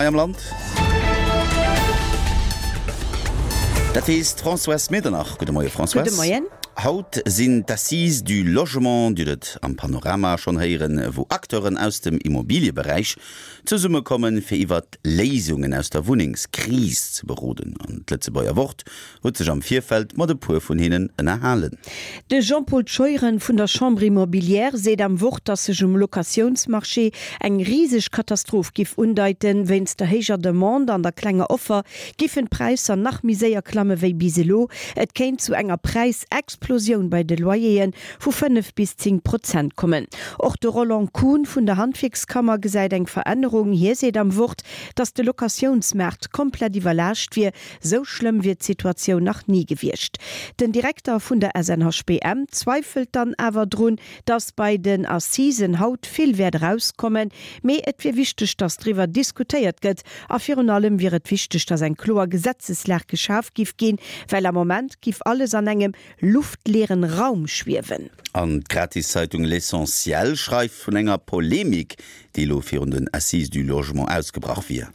hei am Land. Dat weess d'Françoise Medernach. Gudde Moie Françoise. Gudde Moien. Haut sinn d'Assises du Logement, Dir hutt et am Panorama schonn héieren, wou Acteuren aus dem Immobilieberäich zesummekommen, fir iwwert Léisungen aus der Wunnengskris ze beroden. An d'Lëtzebuerger Wort huet sech am Virfeld mat e puer vun hinnen ënnerhalen. De Jean-Paul Scheuren vun der Chambre Immobilière seet am Wort, datt sech um Locatiounsmarché eng riseg Katastroph giff undeiten. Wéinst der héijer Demande an der klenger Offer giffen d'Präisser nach méi séier klamme wéi bis elo. Et kéint zu enger Präisexplosioun bei de Loyere vu 5 bis 10 Prozent kommen. Och de Roland Kuhn vun der Handwierkskammer gesäit eng Verännerung. Hie seet am Wort, datt de Locatiounsmaart komplett iwwerlaascht wier. Sou schlëmm wier d'Situatioun nach ni gewiescht. Den Direkter vun der SNHBM zweifelt dann awer drun, datt bei den Assisen haut vill wäert erauskommen. Mee et wier wichteg, datt driwwer diskutéiert gëtt. A virun allem wier et wichteg, datt eng kloer Gesetzeslag geschaf giff ginn, well am Moment giff alles an engem luftleeren Raum schwiewen. An d'Gratiszeitung L'Essentiel schreift vun enger Polemik, déi elo virun den Assises du Logement ausgebrach wier.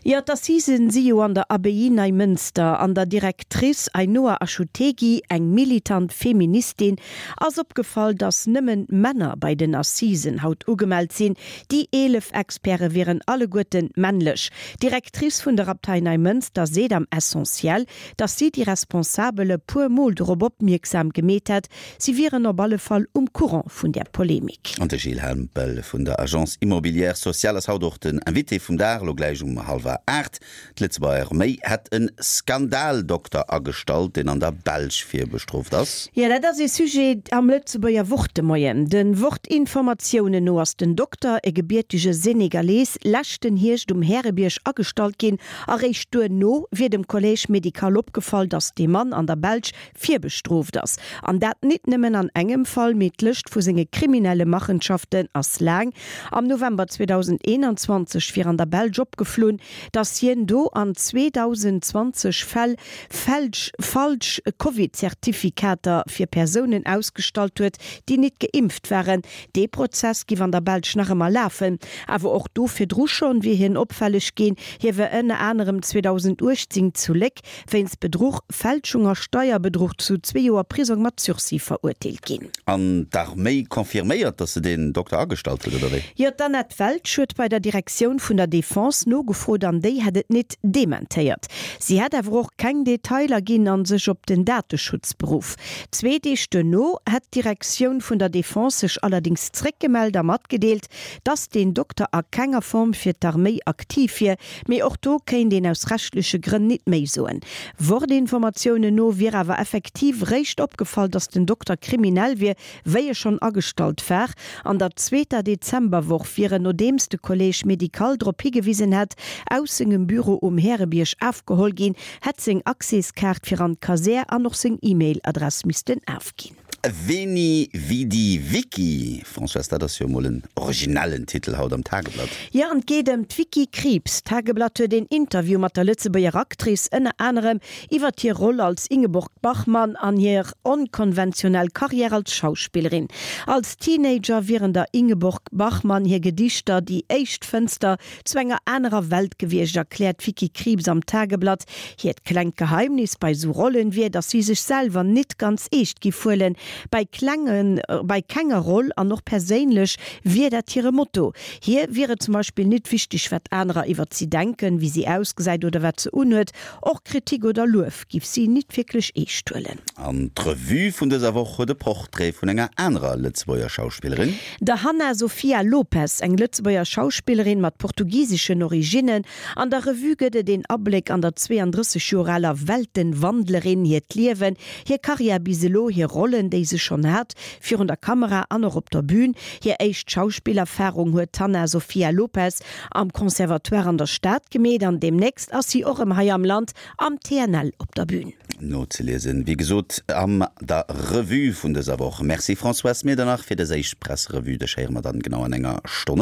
Jo, d'Assisen si jo an der Abbaye Neimënster. An der Directrice Ainhoa Achutegui, eng militant Feministin, ass opgefall, datt nëmmen Männer bei den Assisen haut ugemellt sinn. Déi 11 Experte wieren alleguerten männlech. D'Directrice vun der Abtei Neimënster seet am Essentiel, datt si déi Responsabel e puer Mol dorop opmierksam gemeet hätt. Si wieren op alle Fall um Courant vun där Polemik. An de Gilles Hempel vun der Agence Immobilière Sociale ass haut och den Invité vum Dag, elo gläich um hallwer 8. D'Lëtzebuerger Arméi hätt e Skandaldokter agestallt, deen an der Belsch virbestrooft ass. Jo, dat ass ee Sujet am Lëtzebuerger Wort de Moien. De Wort-Informatiounen no ass den Dokter, e gebiertege Senegalees, leschten Hierscht um Härebierg agestallt ginn Eréischt duerno wier dem Collège médical opgefall, datt dee Mann an der Belsch virbestrooft ass. An dat nit nëmmen an engem Fall, mee d'Lëscht vu senge kriminelle Machenschaften ass laang. Am November 2021 wier an der Belsch opgeflunn, datt hien do an 2.020 Fäll fälsch falsch Covid-Zertifikater fir Persounen ausgestallt huet, déi nit geimpft waren. Dee Prozess giff an der Belsch nach ëmmer lafen. Awer och do virdru schonn wier hien opfälleg ginn. Hie war ënner anerem 2018 zu Léck wéinst Bedruch, Fälschung a Steierbedruch zu zwee Joer Prisong mat Sursis verurteelt ginn. An d'Arméi confirméiert, datt se deen Dokter agestallt huet, oder wéi? Jo, d'Annette Welsch huet bei der Direktioun vun der Defense nogefrot an déi hätt et nit dementéiert. Si hätt awer och keng Detailer ginn an sech op den Dateschutz beruff. Zwee Deeg duerno hätt d'Direktioun vun der Defense sech allerdéngs zréckgemellt a matgedeelt, dass deen Dokter a kenger Form fir d'Arméi aktiv wier, mee och do kéint een aus rechtleche Grënn nit méi soen. Wort-Informatiounen no wier awer effektiv réischt opgefall, dass den Dokter kriminell wier, wéi e schonn agestallt war. An der zweeter Dezemberwoch wier en, nodeems de Collège médical drop higewisen hätt, aus sengem Büro um Härebierg afgeholl ginn, hätt seng Accèskaart fir an d'Kasär an och seng E-Mail-Adress missten afginn. Veni Vidi Vici, Françoise, dat ass jo emol en originellen Titel haut am Tageblatt. Jo, an et geet ëm d'Vicky Krieps. D'Tageblatt huet een Interview mat der Lëtzebuerger Actrice, ënner anerem iwwert hir Roll als Ingeborg Bachmann an hir onkonventionell Karriär als Schauspillerin. Als Teenager wieren der Ingeborg Bachmann hir Gedichter déi éischt Fënster zu enger anerer Welt gewiescht, erkläert d'Vicky Krieps am Tageblatt. Hiert klengt Geheimnis bei sou Rollen wier, datt si sech selwer nit ganz eescht giff huelen. Bei klenge, bei kenger Roll an och perséinlech wier dat hire Motto. Hir wier et zum Beispill nit wichteg, wat anerer iwwert si denken, wéi si ausgesäit oder wat se unhuet. Och Kritik oder Luef giff si nit wierklech eescht huelen. An d'Revue vun dëser Woch huet e Portrait vun enger anerer Lëtzebuerger Schauspillerin. Der Hanna Sofia Lopes, eng Lëtzebuerger Schauspillerin mat portugiseschen Originnen. An der Revue gëtt et een Abléck an der 32 Joer aler Weltenwandlerin hiert Liewen, hir Karriär bis elo, hir Rollen, déi se schonn hat, virun der Kamera an och op der Bün. Hir éischt Schauspillerfarung huet d'Hanna Sofia Lopes am Conservatoire an der Stad gemeet an deemnächst ass si och rëm hei am Land am TNL op der Bühn. Nozeliesen, wéi gesot, am der Revue vun dëser Woch. Merci Françoise Medernach fir dës éischt Presserevue. Dech héiere mer dann genau an enger Stonn.